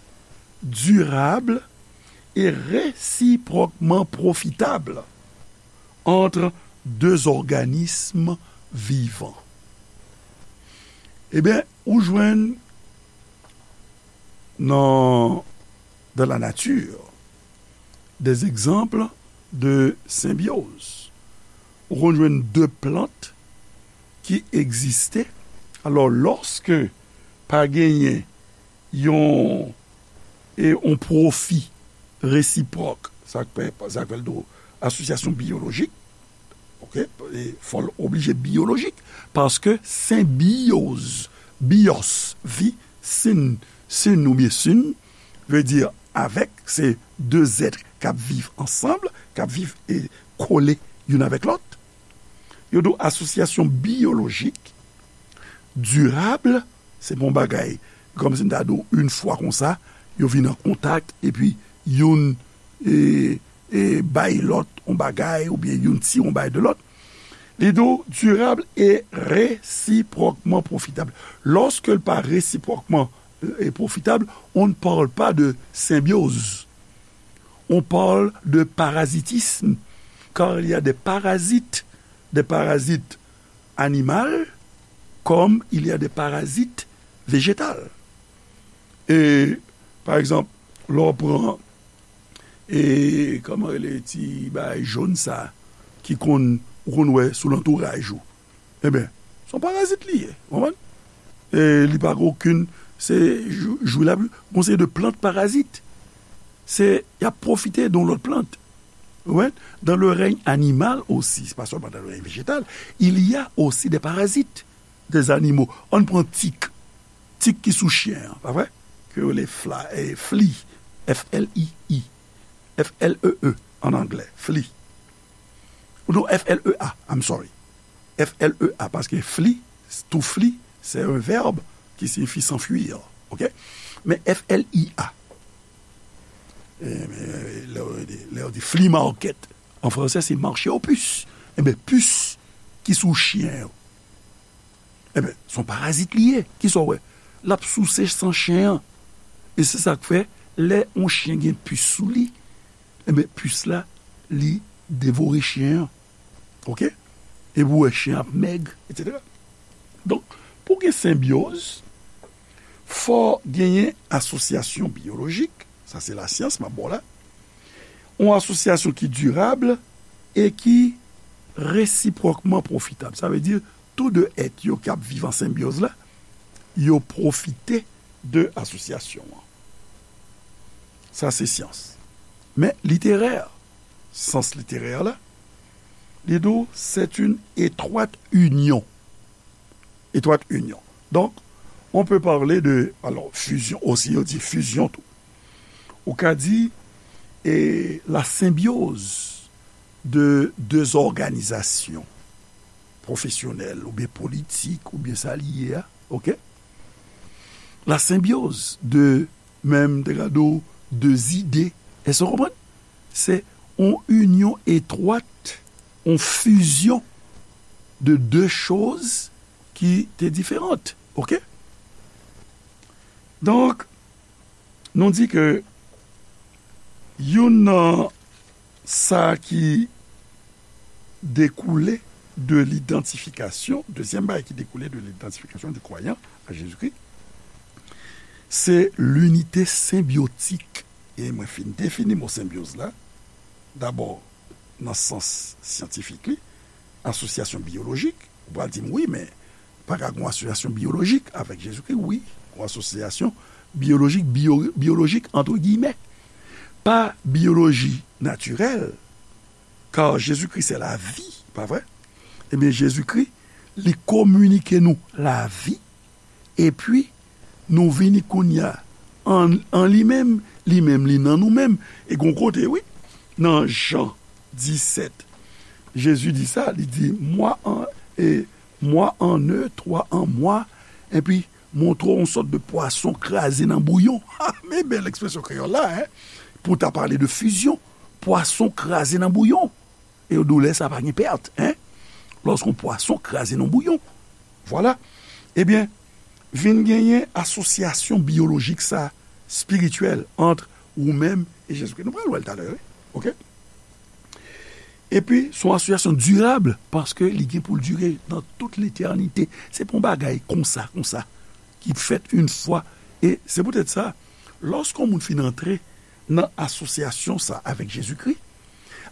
durable et réciproquement profitable entre deux organismes vivants. Ebyen, ou jwenn nan, dans la nature, des exemples de symbiose. Ou konn jwenn de plant ki egziste. Alò, lòske pa genyen yon, e, yon pwofi resipwòk, sa k fè, sa k fè l do asosyasyon biyolojik, oke, e fò l oblije biyolojik, paske senbyoz, bios, vi, sin, sin oubyen sin, vle di avèk, se de zèt k ap viv ansanm, k ap viv e kole youn avèk lòt. Yo di w asosyasyon biyolojik, dirab, se pa yon bagay, kòmsi m ta di w, yon fwa konsa, yo vin an kontak, epi youn, e, e, bay lòt yon bagay, oubyen youn tire yon bagay de lòt. Li di w, durable et réciproquement profitable. Lorsque l pa réciproquement, e, profitable, on ne parle pas de symbiose. On parle de parasitisme, car il y a des parasites, des parasites animaux, comme il y a des parasites végétaux. E, pa egzanp, lè w pran, e, kòman rele ti bagay jòn sa, ki konn, ou konn wè sou lantouraj ou. Ebyen, se yon parazit li ye, w konprann? E li pa gen okenn, se jou, jou l ap, gon seri de plant parazit. Se, y ap pwofite de yon lòt plant. Ou konprann? Dans le règne animal aussi, c'est pas seulement dans le règne végétal, il y a aussi des parasites, des animaux. Ann pran tik. Tik ki sou chen an, pa vre? Ke yo rele fla, e, flea, F L E E, F L E E an anglè, flea. Ou non, F L E A, I'm sorry. F L E A, paske flee, to flee, c'est un verbe qui signifie s'enfuir, oke? Men F L E A, e, men, lè yo di, lè yo di flea market, an fransè, se marché aux puces. Ebyen, pis ki sou chen yo. Ebyen, se yon parazit li ye. Kisa w wè? l ap souse san chen an. E se sa k fè, lè yon chen gen pis sou li, enben, pis la, li devore chen an. Oke? Epi w wè chen ap mèg, etsetera. Donk, pou gen senbyoz, fò genyen asosyasyon biyolojik, sa se lasyans m ap ba w la, yon asosyasyon ki dirab e ki resipwòkman pwofitab. Sa vle di, tou de èt yo k ap viv an senbyoz la, yo pwofite de asosyasyon an. Sa se syans. Men literè, sans literè la, li di w, c'est une étroite union. Étroite union. Donc, on peut parler de, alors, fusion aussi, yo di fusion tou. Ou ka di, e, la symbiose de deux organisations professionnelles, oubyen politik, oubyen sa li ye a, oke? La symbiose de, menm te ka di w, de zide. Èske w konprann? Se yon inyon etwat, yon fizyon de de choz ki te diferan. Oke? Donk, nou di ke youn nan sa ki dekoule de lidantifikasyon, dezyèm bagay ki dekoule de lidantifikasyon di kwayan a Jezikri, se linite senbyotik. E mwen fin defini mo senbyoz la, dabò nan sans syantifik li, asosyasyon biyolojik. Ou pral di m, wi, men pa ka gen yon asosyasyon biyolojik avèk Jezikri? Wi, yon asosyasyon biyolojik, biyo-, biyolojik, antre giyimè. Pa biyoloji natirèl, kar Jezikri se lavi, pa vre? Ebyen, Jezikri, li kominike nou lavi, epi nou vini kounye a an, an li menm, li menm, li nan nou menm. E gon kote, wi, nan Jan disèt, Jezi di sa, li di, moi en, e, moi en eux, toi en moi, epi montre w yon sòt de pwason kraze nan bouyon. Ha, men bèl ekspresyon kreyòl la, en, pou ta pale de fizyon. Pwason kraze nan bouyon. E w di w lè sa pa gen pèt, en? Lòske yon pwason kraze nan bouyon. Vwala. Ebyen, vin genyen asosyasyon biyolojik sa, espirityèl, ant ou menm e Jezikri. Nou pral wè l talè, wi. Oke? Epi, se yon asosyasyon dirab, paske li gen pou l dire nan tout letènite. Se pa yon bagay konsa, konsa, ki fèt yon fwa. E se poutèt sa, lòske yon moun fin antre nan asosyasyon sa avèk Jezikri,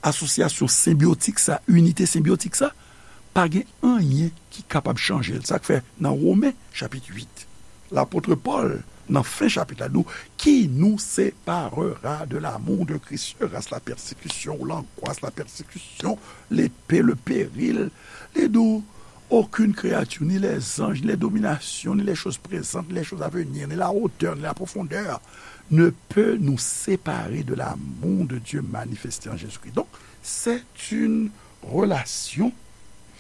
asosyasyon senbyotik sa, inite senbyotik sa, pa gen anyen ki kapab chanje l. Sa k fè nan Women, chapit uit, lapot Pòl, nan fen chapit la, di w, qui nous séparera de l'amour de Christ? Sera-ce la persécution ou l'angoisse, la persécution, l'épée, le péril? Li di w, aucune créature, ni les anges, ni les dominations, ni les choses présentes, ni les choses à venir, ni la hauteur, ni la profondeur, ne peut nous séparer de l'amour de Dieu manifesté en Jésus-Christ. Donc, c'est une relation,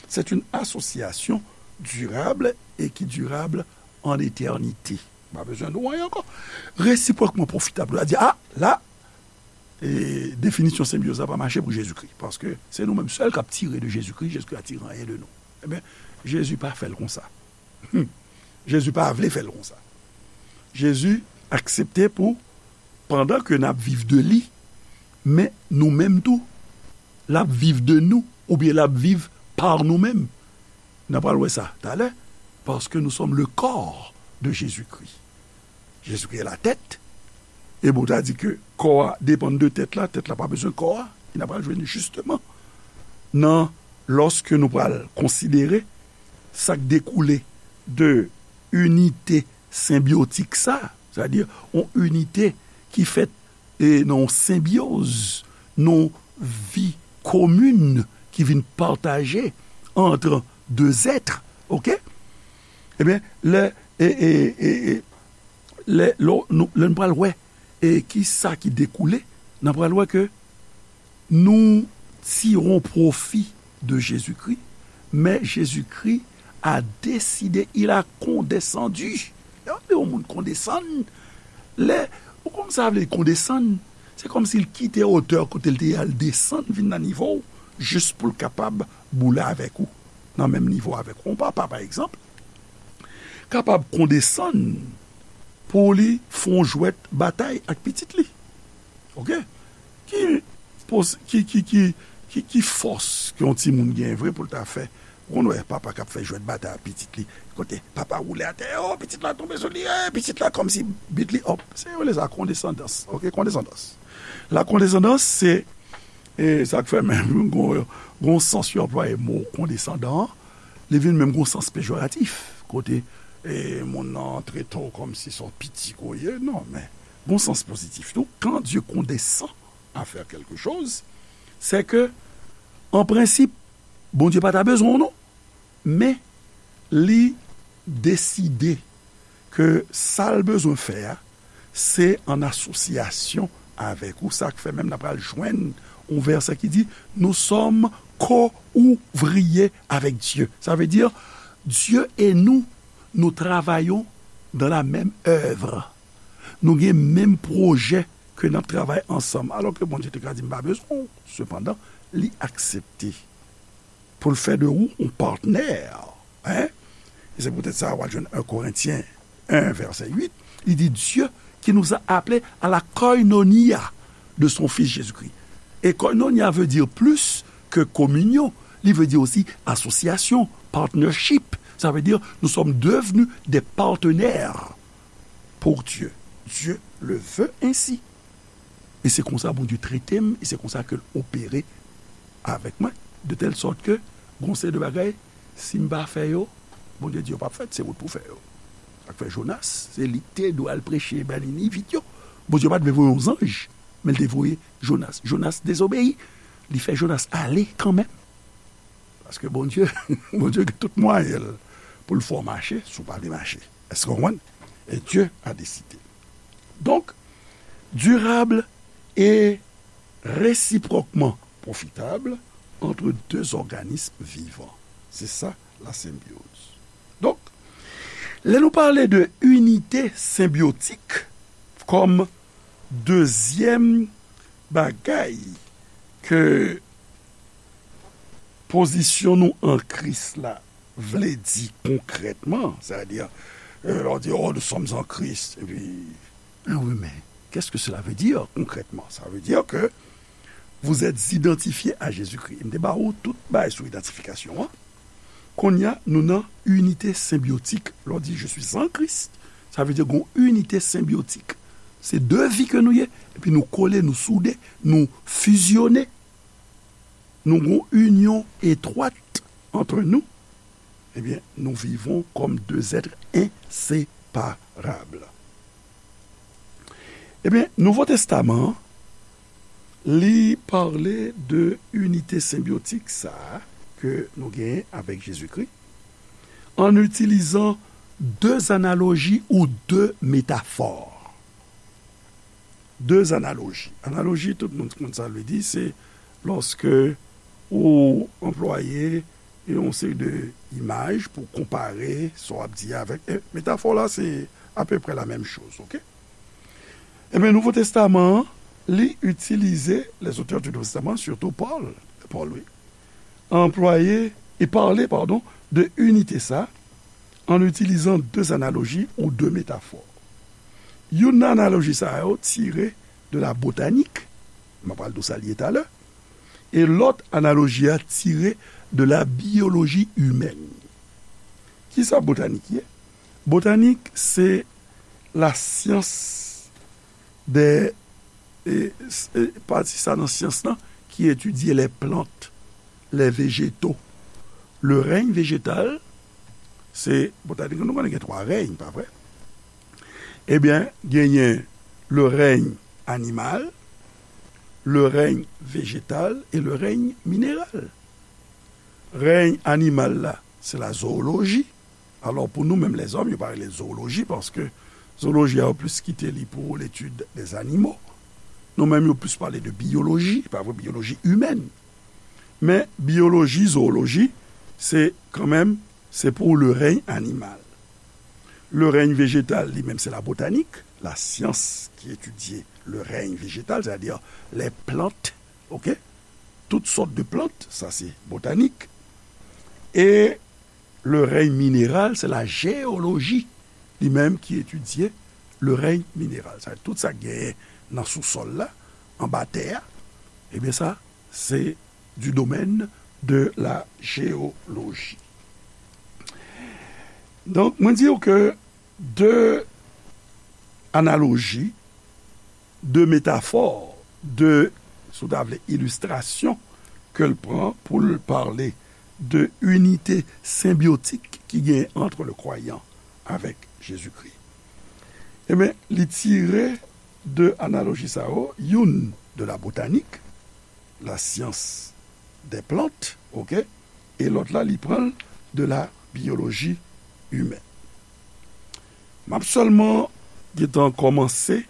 c'est une association durable et qui durable en éternité. Pa bezwen di w anyen ankò. Resipwòkman pwofitab. Ou a di, a, la, e, definisyon senbyoz la pa mache pou Jezikri. Paske se nou menm sèl k ap tire de Jezikri, Jezikri pa tire anyen de nou. Ebyen, Jezi pa fè l konsa. Hmm. Jezi pa vle fè l konsa. Jezi aksepte pou, pandan ke n ap viv de li, men nou menm tou, l ap viv de nou, oubyen l ap viv pa nou menm. N a pral wè sa talè, parce que nous sommes le corps de Jésus-Christ. Jezikri est la tête. E bon, ta di ke kò a depann de tèt la, tèt la pa bezwen kò a. E n a pral jwenn li jisteman nan, lòske nou pral konsidere sa k dekoule de inite senbyotik sa, sètadi yon inite ki fèt e nan yon senbyoz, nan yon vi komin ki vin pataje ant de zèt, oke? Ebyen, lè, e, e, e, e, lè, lè nou, lè nou pral wè, e ki sa ki dekoule, n a pral wè ke nous tirons profit de Jésus-Christ, mais Jésus-Christ a décidé, il a condescendu. Lè w ap di yon moun kondesann, lè, ou konn sa vle kondesann, se kòmsi l kite wotè kote l te ye a, l desann vin nan nivo w, jis pou l kapab boule avèk ou, nan menm nivo avèk ou. Yon papa, pa egzanp, kapab kondesann pou li fè yon jwèt batay ak pitit li. Oke? Ki pos-, ki, ki, ki, ki, ki fòs ke yon timoun gen vre pou l ta fè? Ou konn wè papa k ap fè jwèt batay ak pitit li, kote papa woule atè, o, pitit la tonbe sou li, e, pitit la kòmsi beat li up. Se yo rele sa kondesandans. Oke, kondesandans. La kondesandans, se, e, sa k fè menm gon, gon sans yo anplwaye mo kondesandan an, li vin menm gon sans pejoratif, kote, e, moun nan trete w kòmsi se yon piti ke w ye. Non, men gon sans pozitif tou. Quand Dieu condescend à faire quelque chose, c'est que, en principe, Bondye pa ta bezwen w non, men li deside ke sa l bezwen fè a, se an asosyasyon avèk ou. Sa k fè menm n a pral jwenn yon vèsè ki di, nous sommes co-ouvriers avec Dieu. Sa vle di, Dieu et nous, nous travaillons dans la même œuvre. Nou gen menm pwojè ke n ap travay ansanm. Alò ke Bondye te ka di, "M pa bezwen w." Sepandan, li aksepte pou l fè de ou yon patnè. Hein? E se poutèt sa, w al jwenn en Korentyen en, vèsè uit, li di, Dieu qui nous a appelés à la koinonia de son Fils Jésus-Christ. E koinonia veut dire plus que communion, li vle di osi asosyasyon, partnership. Ça veut dire nous sommes devenus des partenaires pour Dieu. Dieu le veut ainsi. E se konsa Bondye trete m, e se konsa ke l opere avèk mwen, de tèl sòt ke gon seri de bagay, si m pa fè yo, Bondye di yo p ap fèt, se ou t pou fè yo. Sa k fè Jonas, se li k te dwe al preche bay Niniv yo. Bondye pa t vle voye yon zanj, men l te voye Jonas. Jonas dezobeyi. Li fè Jonas ale kanmenm. Paske Bondye, Bondye gen tout mwayen l pou l fè w mache, si w pa vle mache. Èske w konprann? Et Dieu a décidé. Donc, durable et réciproquement profitable entre deux organismes vivants. C'est ça, la symbiose. Donc, lè nou pale de unité symbiotique comme deuxième bagay ke pozisyon nou an Kris la vle di konkrètman, sètadi, euh, lè w di, oh, nous sommes en Christ, epi, ah oui, mais qu'est-ce que cela veut dire concrètement? Ça veut dire que vous êtes identifié à Jésus-Christ. M te ba ou tout bagay sou idantifikasyon an. Kounye a, nou nan inite senbyotik. Lè w di, je suis en Christ, sa vle di gon inite senbyotik. Se de vi ke nou ye, epi nou kole, nou soude, nou fizyone. Nou gon inyon etwat entre nous, eh bien, nous vivons comme deux êtres inséparables. Eh bien, Nouvo Testaman an, li pale de inite senbyotik sa a ke nou genyen avèk Jezikri, an itilizan de analoji ou de metafò. De analoji. Analoji, tout moun konn sa l vle di, se lòske ou anplwaye yon seri de imaj pou konpare sa w ap di a avèk, e, metafò la, se apeprè la menm choz, oke? Ebyen, Nouvo Testaman an, li itilize, les auteurs du Nouveau Testament, surtout Paul, Paul, wi, anplwaye e pale, padon, de inite sa, an itilizan de analoji ou de metafò. Youn nan analoji sa yo tire de la botanik, m ap pral di w sa l ye talè, e lòt analoji a tire de la biyoloji imèn. Kisa botanik ye? Botanik, se la syans de, e, s-, e, pati sa nan syans lan ki etidye les plantes, les végétaux. Le règne végétal, se, botanik, nou konnen gen twa rèy, pa vre? Ebyen, genyen le règne animal, le règne végétal et le règne minéral. Rèy animal la, se la zooloji. Alò, pou nou menm lèzòm, yo pa rele l zooloji, paske zooloji a, yo plis kite li pou l'étude des animaux. Nou menm, yo plis pale de biyoloji, pa vre, biyoloji imèn. Men, biyoloji, zooloji, se kanmenm, se pou le règne animal. Le règne végétal, li menm, se la botanik, la syans ki etidye le règne végétal, sètadi les plantes, oke? Tout sòt de plant, sa se botanik. E le règne minéral, c'est la géologie li menm ki etidye le règne minéral. Sa, tout sa k genyen nan sousòl la, anba tè a, ebyen sa, se du domaine de la géologie. Donk, mwen di w ke de analoji, de metafò, de, si w ta vle, ilistrasyon ke l pran pou l pale de inite senbyotik ki genyen ant le kwayan avèk Jezikri. Ebyen, li tire de analoji sa yo, youn de la botanik, la science des plantes, oke, e lòt la, li pran l de la biologie humaine. M ap sèlman gentan kòmanse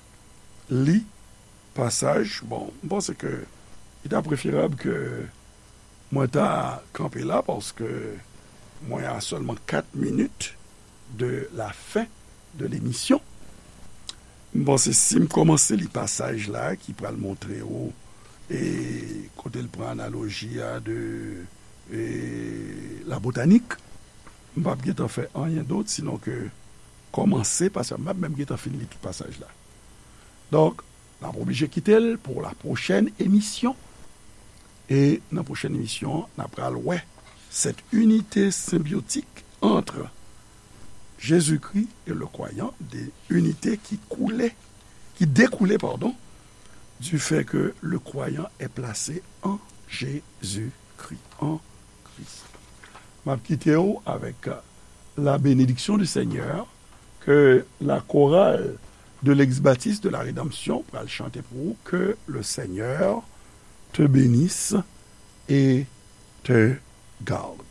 li pasaj. Bon, m panse ke li ta preferab ke mwen ta kanpe la, paske mwen a sèlman kat minit de la fen de lemisyon. M panse si m kòmanse li pasaj la ki pral montre w, e, kote l pran analoji a de, e, la botanik, m p ap gentan fè anyen dòt sinon ke kòmanse, paske m p ap menm gentan fin li tout pasaj la. Donk, n ap oblije kite l pou la pwochèn emisyon. E nan pwochèn emisyon, n ap pral wè cette unité symbiotique entre Jésus-Christ et le croyant, de unité ki koule, ki dekoule, pardon, du fait que le croyant est placé en Jésus-Christ, en Christ. M ap kite w avèk la bénédiction du Seigneur, que la chorale de l'ex-baptiste de la rédemption pral chante pou ou, que le Seigneur te bénisse et te garde.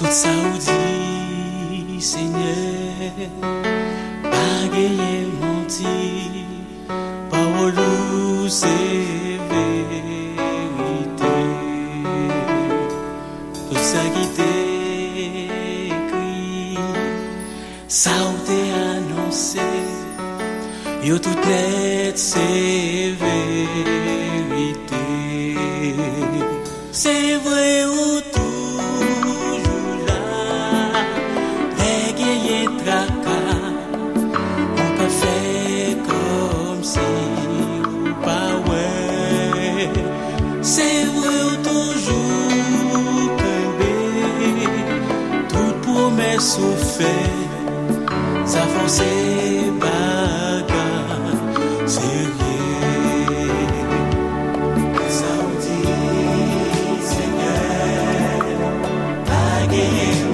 Tout sa ou di, Senyè, pa genyen manti. Pawòl ou se verite. Tout sa ki te ekri, sa ou te anonse, yo tout nèt se verite. Se vre ou toujou la, lè genyen traka, ou ka fè kòmsi ou pa wè. Se vre ou toujou kenbe tout pwomès ou fè. Sa fè w se bagay serye. Sa w di, Senyè, pa genyen